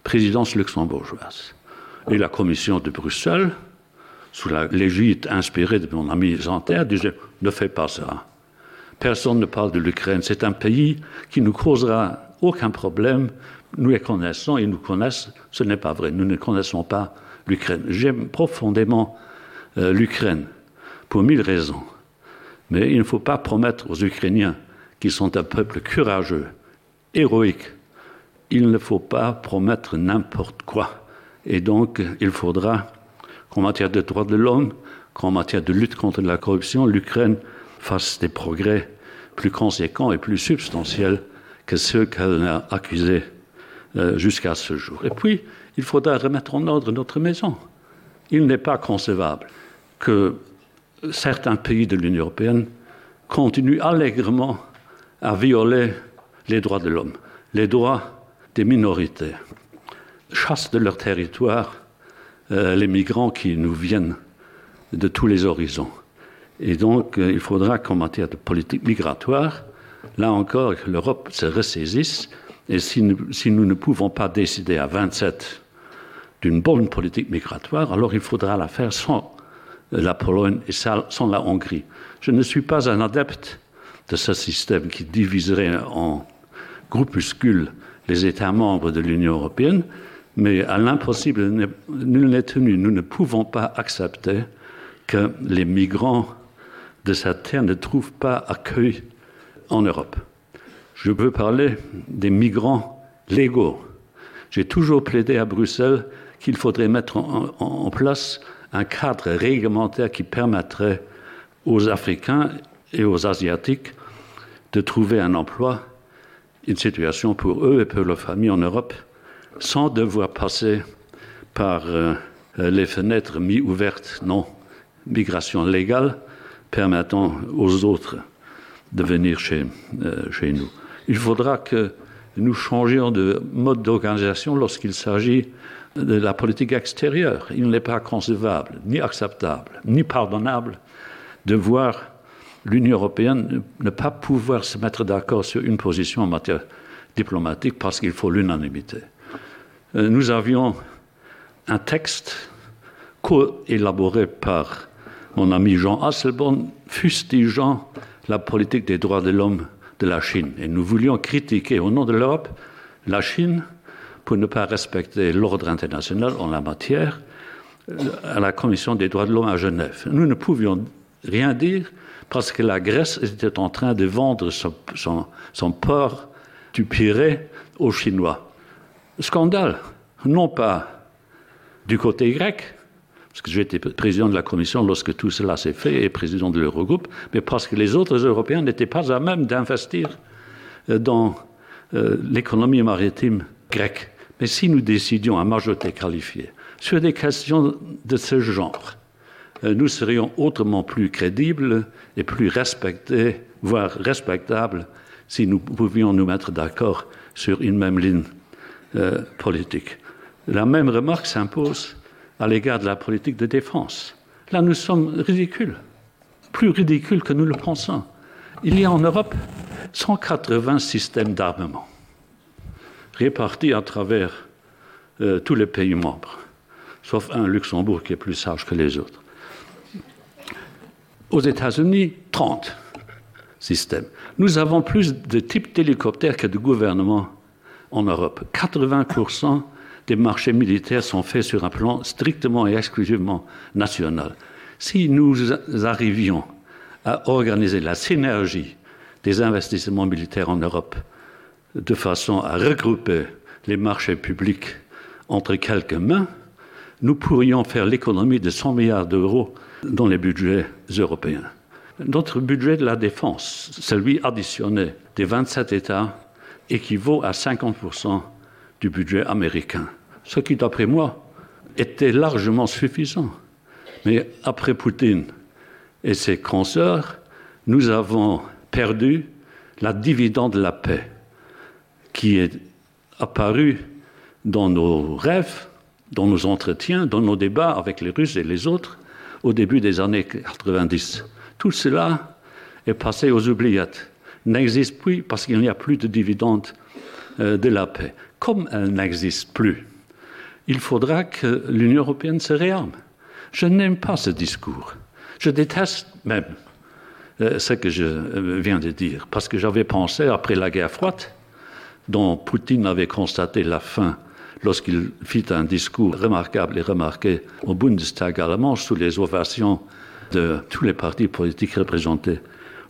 présidence luxembourgeoise et la commission de Bruxelles, sous l'égide inspirée de mon ami Zanterre, disait ne fais pas ça. Personne ne parle de l'Ukraine, c'est un pays qui nous causera aucun problème, nous les connaissons et nous connaissent, ce n'est pas vrai, nous ne connaissons pas l'Ukraine. J'aime profondément euh, l'Ukraine pour mille raisons. Mais il ne faut pas promettre aux Ukrainiens qui sont un peuple courageux, héroïque, il ne faut pas promettre n'importe quoi. Et donc il faudra qu'en matière de droits de l'homme, qu'en matière de lutte contre la corruption, l'Ukraine fasse des progrès plus conséquents et plus substantiels que ceux qu'elle a accusés euh, jusqu'à ce jour. Et puis, il faudra remettre en ordre notre maison. Il n'est pas concevable que certains pays de l'Union européenne continuent allègrement à violer les droits de l'homme, les droits des minorités, chassent de leur territoire euh, les migrants qui nous viennent de tous les horizons. Et donc euh, il faudra qu'en matière de politique migratoire, là encore que l'Europe se ressaisisse et si nous, si nous ne pouvons pas décider à 27 d'une bonne politique migratoire, alors il faudra la faire sans la Pologne et sans la Hongrie. Je ne suis pas un adepte de ce système qui diviserait en groupuscules les États membres de l'Union européenne, mais à l'impossible nul n'est tenu. Nous ne pouvons pas accepter que les migrants de cette terre ne trouvent pas accueil en Europe. Je veux parler des migrants légaux. J'ai toujours plaidé à Bruxelles qu'il faudrait mettre en, en, en place un cadre réglementaire qui permettrait aux Africains et aux Asiatiques de trouver un emploi, une situation pour eux et pour leur famille en Europe, sans devoir passer par euh, les fenêtres mi-ouvertes, non migration légale, permettant aux autres de venir chez, euh, chez nous. Il faudra que nous changions de mode d'organisation lorsqu'il s'agit de la politique extérieure. Il n'est pas concevable, ni acceptable, ni pardonnable de voir l'Union européenne ne pas pouvoir se mettre d'accord sur une position en matière diplomatique parce qu'il faut l'unanimité. Euh, nous avions un texte coélaboré par mon ami Jean Hasselborn fustigeant la politique des droits de l'homme de la Chine. Et nous voulions critiquer au nom de l'Europe la Chine pour ne pas respecter l'ordre international en la matière euh, à la Commission des droits de l'homme à Genève. Nous ne pouvions rien dire parce que la Grèce était en train de vendre son, son, son port du Pirée aux Chinois. Scandale, non pas du côté grec, parce que j'étais président de la commission lorsque tout cela s'est fait et président de l'Eurogroupe, mais parce que les autres Européens n'étaient pas à même d'investir euh, dans euh, l'économie maritime grecque. Mais si nous décidions à majorité qualifiée sur des questions de ce genre, euh, nous serions autrement plus crédibles et plus respectés, voire respectables, si nous pouvions nous mettre d'accord sur une même ligne euh, politique. La même remarque s'impose à l'égard de la politique de défense. Là, nous sommes ridicules, plus ridicules que nous le pensons. Il y a en Europe 180 systèmes d'armement répartis à travers euh, tous les pays membres, sauf un Luxembourg qui est plus sage que les autres. Aux États-Unis, 30 systèmes. Nous avons plus de types d'hélicoptères que de gouvernements en Europe. 80 des marchés militaires sont faits sur un plan strictement et exclusivement national. Si nous arrivions à organiser la synergie des investissements militaires en Europe de façon à regrouper les marchés publics entre quelques mains, nous pourrions faire l'économie de 100 milliards d'euros dans les budgets européens. Notre budget de la défense, celui additionné des 27 États, équivaut à 50 du budget américain, ce qui, d'après moi, était largement suffisant. Mais après Poutine et ses consoeurs, nous avons perdu la dividende de la paix qui est apparue dans nos rêves, dans nos entretiens, dans nos débats avec les Russes et les autres au début des années 90. Tout cela est passé aux oubliettes, n'existe plus parce qu'il n'y a plus de dividende euh, de la paix. Comme elle n'existe plus, il faudra que l'Union européenne se réarme. Je n'aime pas ce discours. Je déteste même euh, ce que je euh, viens de dire, parce que j'avais pensé après la guerre froide, dont Poutine avait constaté la fin lorsqu'il fit un discours remarquable et remarqué au Bundestag allemand sous les ovations de tous les partis politiques représentés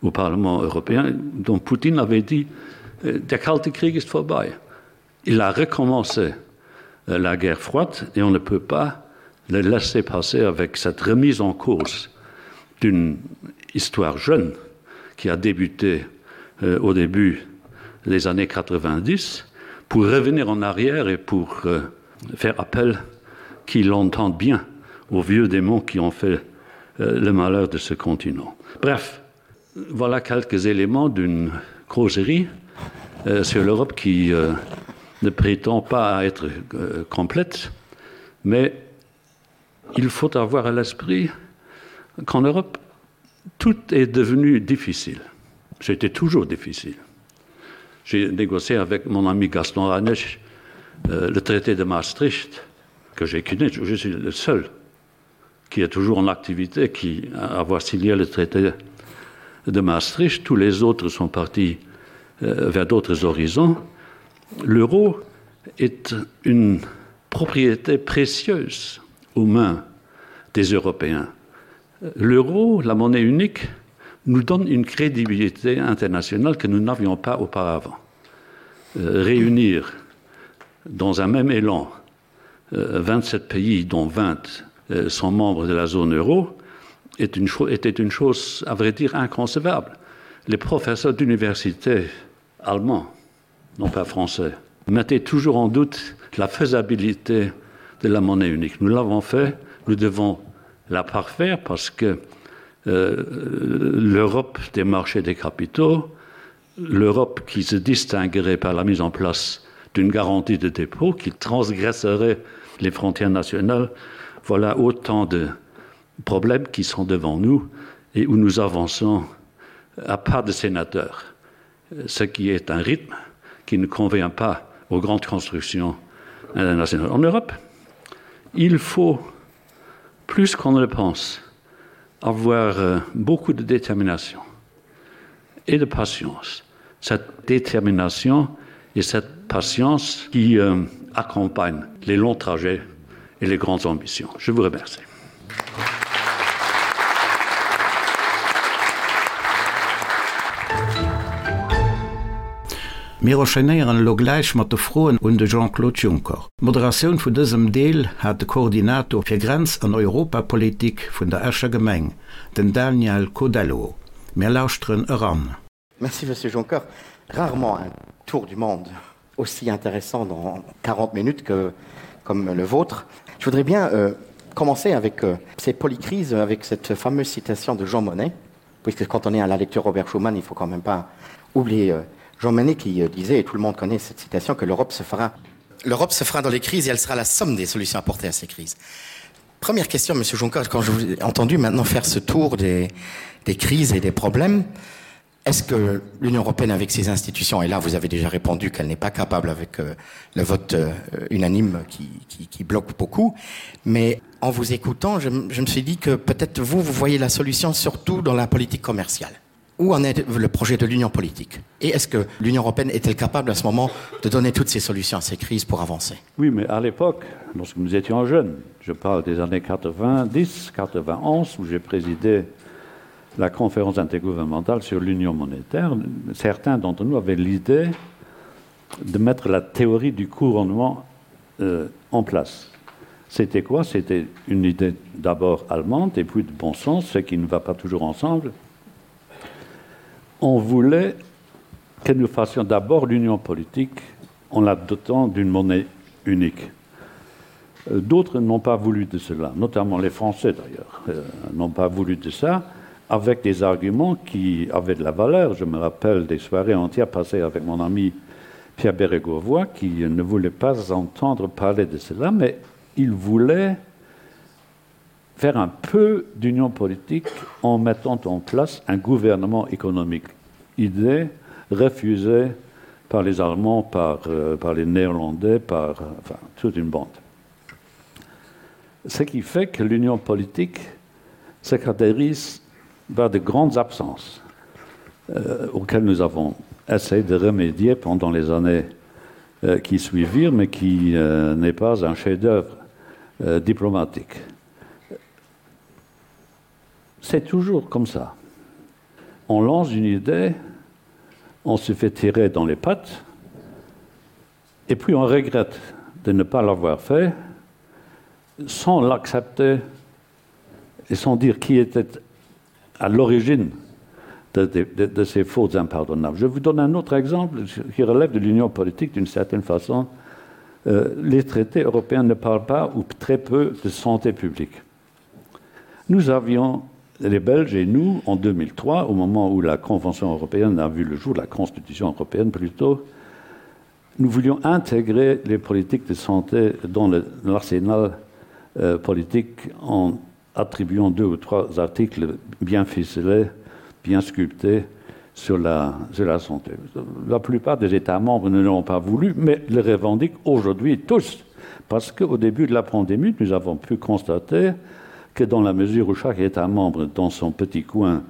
au Parlement européen, dont Poutine avait dit euh, Der kalte Krieg ist vorbei. Il a recommencé euh, la guerre froide et on ne peut pas le laisser passer avec cette remise en cause. d'une histoire jeune qui a débuté euh, au début des années 90 pour revenir en arrière et pour euh, faire appel qu'il entende bien aux vieux démons qui ont fait euh, le malheur de ce continent. Bref, voilà quelques éléments d'une causerie euh, sur l'Europe qui euh, ne prétend pas être euh, complète, mais il faut avoir à l'esprit qu'en Europe, tout est devenu difficile. C'était toujours difficile. J'ai négocié avec mon ami Gaston Ranech euh, le traité de Maastricht que j'ai connu, je suis le seul qui est toujours en activité qui avoir signé le traité de Maastricht, tous les autres sont partis euh, vers d'autres horizons. L'euro est une propriété précieuse aux mains des Européens. L'euro, la monnaie unique, nous donne une crédibilité internationale que nous n'avions pas auparavant. Euh, réunir dans un même élan euh, 27 pays dont 20 euh, sont membres de la zone euro est une était une chose à vrai dire inconcevable. Les professeurs d'université allemands, non pas français, mettaient toujours en doute la faisabilité de la monnaie unique. Nous l'avons fait, nous devons la parfaire parce que euh, l'Europe des marchés des capitaux, l'Europe qui se distinguerait par la mise en place d'une garantie de dépôt qui transgresserait les frontières nationales, voilà autant de problèmes qui sont devant nous et où nous avançons à pas de sénateurs, ce qui est un rythme qui ne convient pas aux grandes constructions internationales. En Europe, il faut plus qu'on ne le pense avoir euh, beaucoup de détermination et de patience. Cette détermination et cette patience qui euh, accompagnent les longs trajets et les grandes ambitions. Je vous remercie. Mir enchaînéieren elo gläich mat de Froen un de Jean-Claude Juncker. D'Moderatioun vun dësem Deel hat de Koordinator fir Grenz an Europapolitik vun der Escher Gemeng, den Daniel Codello. Mir lauschteren eran. Merci Monsieur Juncker. Rarement un tour du monde aussi intéressant dans 40 minutes que comme le vôtre. Je voudrais bien euh, commencer avec euh, ces polycrises, avec cette fameuse citation de Jean Monnet, puisque quand on est à la lecture Robert Schuman, il faut quand même pas oublier euh, Jean Monnet qui euh, disait, et tout le monde connaît cette citation, que l'Europe se fera L'Europe se fera dans les crises et elle sera la somme des solutions apportées à ces crises. Première question, Monsieur Juncker, quand je vous ai entendu maintenant faire ce tour des, des crises et des problèmes, est-ce que l'Union européenne avec ses institutions, et là vous avez déjà répondu qu'elle n'est pas capable avec euh, le vote euh, unanime qui, qui, qui bloque beaucoup, mais en vous écoutant, je, je me suis dit que peut-être vous, vous voyez la solution surtout dans la politique commerciale. Où en est le projet de l'union politique Et est-ce que l'Union européenne est-elle capable à ce moment de donner toutes ces solutions à ces crises pour avancer Oui, mais à l'époque, lorsque nous étions jeunes, je parle des années 90, 91, où j'ai présidé la conférence intergouvernementale sur l'union monétaire, certains d'entre nous avaient l'idée de mettre la théorie du couronnement euh, en place. C'était quoi C'était une idée d'abord allemande et puis de bon sens, ce qui ne va pas toujours ensemble. On voulait que nous fassions d'abord l'union politique en la dotant d'une monnaie unique. Euh, d'autres n'ont pas voulu de cela, notamment les Français d'ailleurs, euh, n'ont pas voulu de ça avec des arguments qui avaient de la valeur. Je me rappelle des soirées entières passées avec mon ami Pierre Bérégovoy qui ne voulait pas entendre parler de cela, mais il voulait faire un peu d'union politique en mettant en place un gouvernement économique. Idée refusée par les Allemands, par, euh, par les Néerlandais, par enfin, toute une bande. Ce qui fait que l'union politique se caractérise par de grandes absences euh, auxquelles nous avons essayé de remédier pendant les années euh, qui suivirent, mais qui euh, n'est pas un chef-d'œuvre euh, diplomatique. C'est toujours comme ça. On lance une idée, on se fait tirer dans les pattes, et puis on regrette de ne pas l'avoir fait sans l'accepter et sans dire qui était. à l'origine de, de, de, de ces fautes impardonnables. Je vous donne un autre exemple qui relève de l'union politique d'une certaine façon. Euh, les traités européens ne parlent pas ou très peu de santé publique. Nous avions les Belges et nous en 2003, au moment où la Convention européenne a vu le jour, la Constitution européenne plutôt, nous voulions intégrer les politiques de santé dans l'arsenal euh, politique en attribuant deux ou trois articles bien ficelés, bien sculptés sur la, sur la santé. La plupart des États membres ne l'ont pas voulu, mais le revendiquent aujourd'hui tous, parce qu'au début de la pandémie, nous avons pu constater que dans la mesure où chaque État membre, dans son petit coin,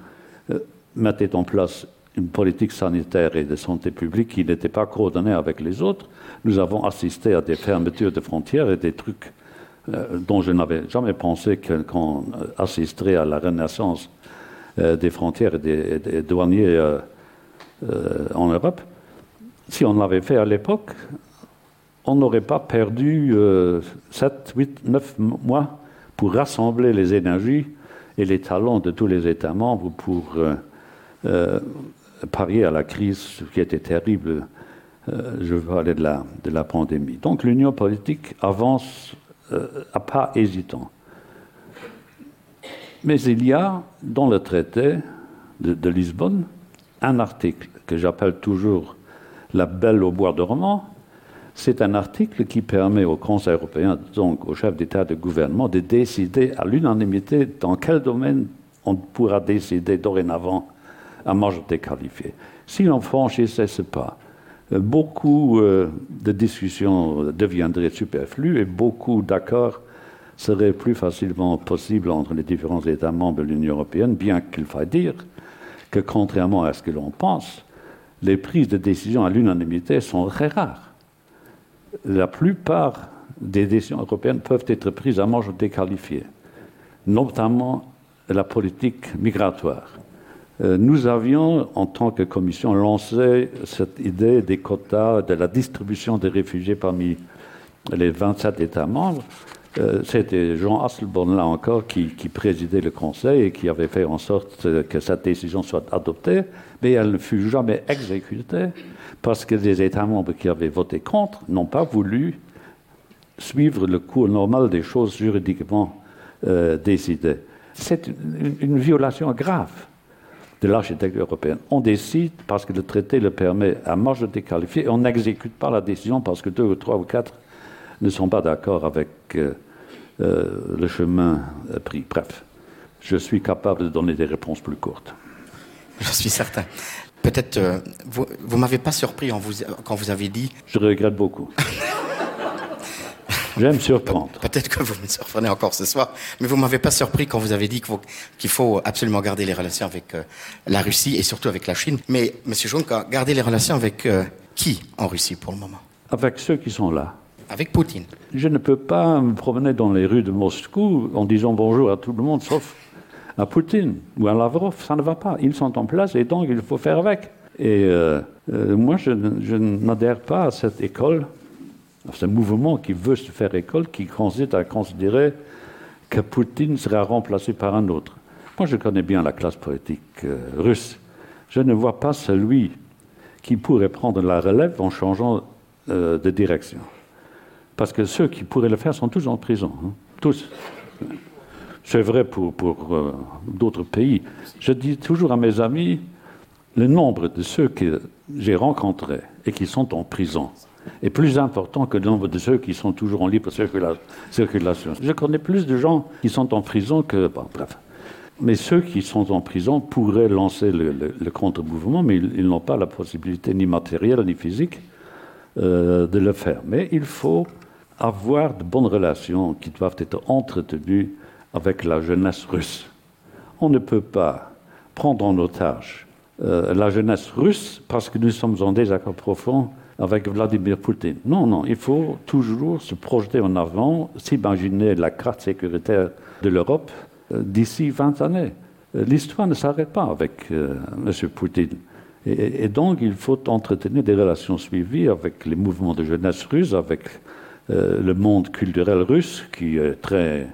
euh, mettait en place une politique sanitaire et de santé publique qui n'était pas coordonnée avec les autres, nous avons assisté à des fermetures de frontières et des trucs euh, dont je n'avais jamais pensé qu'on assisterait à la renaissance euh, des frontières et des, des douaniers euh, euh, en Europe. Si on l'avait fait à l'époque, on n'aurait pas perdu euh, 7, 8, 9 mois pour rassembler les énergies et les talents de tous les États membres pour euh, euh, parier à la crise qui était terrible euh, je veux parler de la, de la pandémie. Donc l'union politique avance euh, à pas hésitant. Mais il y a dans le traité de, de Lisbonne un article que j'appelle toujours la belle au bois dormant. C'est un article qui permet au Conseil européen, donc au chef d'État de gouvernement, de décider à l'unanimité dans quel domaine on pourra décider dorénavant à majorité qualifiée. Si l'on franchissait ce pas, euh, beaucoup euh, de discussions deviendraient superflues et beaucoup d'accords seraient plus facilement possibles entre les différents États membres de l'Union européenne, bien qu'il faille dire que, contrairement à ce que l'on pense, les prises de décision à l'unanimité sont très rares. La plupart des décisions européennes peuvent être prises à majorité qualifiée, notamment la politique migratoire. Euh, nous avions, en tant que commission, lancé cette idée des quotas, de la distribution des réfugiés parmi les 27 États membres. Euh, c'était Jean Asselborn, là encore, qui, qui présidait le Conseil et qui avait fait en sorte que cette décision soit adoptée, mais elle ne fut jamais exécutée parce que les États membres qui avaient voté contre n'ont pas voulu suivre le cours normal des choses juridiquement euh, décidées. C'est une, une violation grave de l'architecture européenne. On décide parce que le traité le permet à majorité qualifiée et on n'exécute pas la décision parce que deux ou trois ou quatre ne sont pas d'accord avec euh, euh, le chemin pris. Bref, je suis capable de donner des réponses plus courtes. Je suis certain. Peut-être euh, vous, vous m'avez pas surpris en vous, quand vous avez dit. Je regrette beaucoup. J'aime surprendre. Peut-être que vous me surprenez encore ce soir, mais vous m'avez pas surpris quand vous avez dit qu'il qu faut absolument garder les relations avec euh, la Russie et surtout avec la Chine. Mais monsieur Juncker, garder les relations avec euh, qui en Russie pour le moment Avec ceux qui sont là. Avec Poutine. Je ne peux pas me promener dans les rues de Moscou en disant bonjour à tout le monde sauf à Poutine ou à Lavrov, ça ne va pas. Ils sont en place et donc il faut faire avec. Et euh, euh, moi, je, je n'adhère pas à cette école, à ce mouvement qui veut se faire école, qui consiste à considérer que Poutine sera remplacé par un autre. Moi, je connais bien la classe politique euh, russe. Je ne vois pas celui qui pourrait prendre la relève en changeant euh, de direction. Parce que ceux qui pourraient le faire sont tous en prison. Hein, tous. C'est vrai pour, pour euh, d'autres pays. Je dis toujours à mes amis le nombre de ceux que j'ai rencontrés et qui sont en prison est plus important que le nombre de ceux qui sont toujours en libre circula circulation. Je connais plus de gens qui sont en prison que bon, bref. Mais ceux qui sont en prison pourraient lancer le, le, le contre-mouvement, mais ils, ils n'ont pas la possibilité ni matérielle ni physique euh, de le faire. Mais il faut avoir de bonnes relations qui doivent être entretenues avec la jeunesse russe. On ne peut pas prendre en otage euh, la jeunesse russe parce que nous sommes en désaccord profond avec Vladimir Poutine. Non, non, il faut toujours se projeter en avant, s'imaginer la carte sécuritaire de l'Europe euh, d'ici 20 années. Euh, l'histoire ne s'arrête pas avec euh, M. Poutine. Et, et donc, il faut entretenir des relations suivies avec les mouvements de jeunesse russe, avec euh, le monde culturel russe qui est très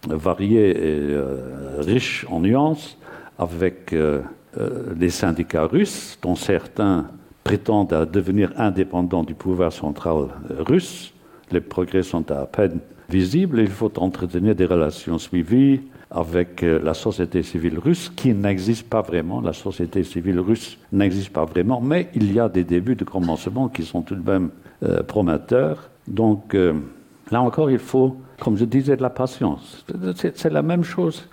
varié et euh, riche en nuances, avec euh, euh, les syndicats russes, dont certains prétendent à devenir indépendants du pouvoir central russe. Les progrès sont à peine visibles. Il faut entretenir des relations suivies avec euh, la société civile russe qui n'existe pas vraiment. La société civile russe n'existe pas vraiment, mais il y a des débuts de commencement qui sont tout de même euh, prometteurs. Donc euh, là encore, il faut, comme je disais, de la patience. C'est la même chose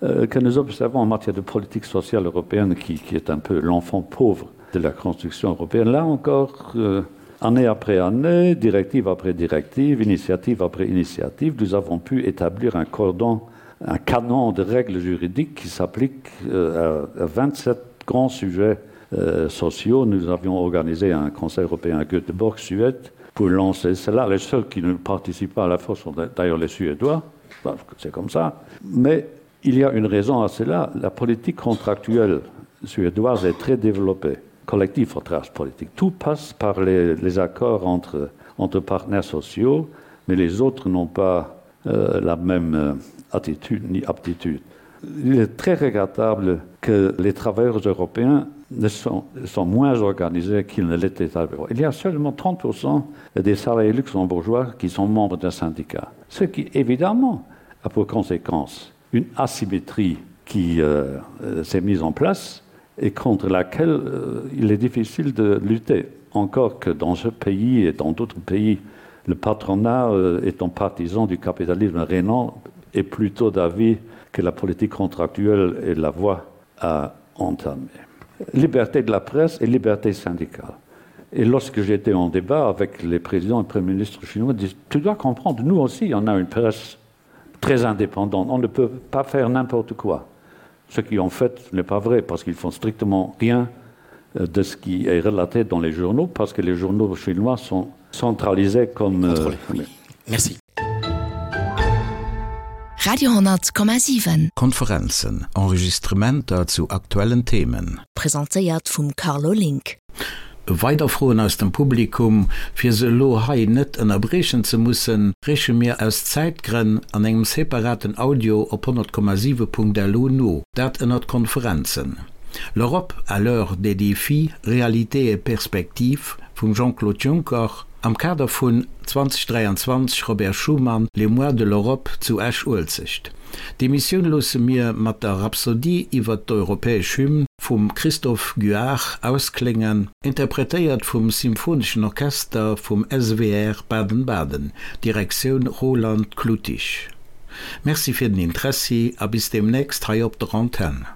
euh, que nous observons en matière de politique sociale européenne qui, qui est un peu l'enfant pauvre de la construction européenne. Là encore, euh, année après année, directive après directive, initiative après initiative, nous avons pu établir un cordon, un canon de règles juridiques qui s'applique euh, à, à 27 grands sujets euh, sociaux. Nous avions organisé un Conseil européen à Göteborg, Suède, pour lancer cela. Les seuls qui ne participent pas à la force sont d'ailleurs les Suédois, c'est comme ça. Mais il y a une raison à cela. La politique contractuelle suédoise est très développée. Collectif en trace politique. Tout passe par les, les accords entre, entre partenaires sociaux, mais les autres n'ont pas euh, la même euh, attitude ni aptitude. Il est très regrettable que les travailleurs européens ne sont, sont moins organisés qu'ils ne l'étaient avant. Il y a seulement 30% des salariés luxembourgeois qui sont membres d'un syndicat, ce qui évidemment a pour conséquence une asymétrie qui euh, euh s'est mise en place et contre laquelle euh, il est difficile de lutter. Encore que dans ce pays et dans d'autres pays, le patronat euh, étant partisan du capitalisme rénant est plutôt d'avis que la politique contractuelle est la voie à entamer. Liberté de la presse et liberté syndicale. Et lorsque j'étais en débat avec les présidents et premiers ministres chinois, ils disent tu dois comprendre, nous aussi on a une presse très indépendante, on ne peut pas faire n'importe quoi. Ce qui en fait n'est pas vrai parce qu'ils font strictement rien euh, de ce qui est relaté dans les journaux parce que les journaux chinois sont centralisés comme euh, oui. Merci. Radio 10,7. Konferenzen, Enregistrementer zu aktuellen Themen. Presentéiert vum Carlo Link. Weider Froen aus dem Publikum, fir se elo hei net ënnerbriechen ze mussen, reeche mir aus Zäitgrënn an engem separaten Audio op 100,7.lu no, dat ënnert Konferenzen. L'Europe à l'heure des défis, réalités et perspectives vum Jean-Claude Juncker am Kader vun 2023 Robert Schuman, Les mois de l'Europe zu Esch-Uelzecht. D'Emissioun loosse mir mat der Rhapsodie iwwert d'europäesch Hymn vum Christophe Guard auskléngen, interpretéiert vum Symphoneschen Orchester vum SWR Baden-Baden, Direktioun Roland Kluttig. Merci fir den Interessi a bis deemnächst hei op der Antenn.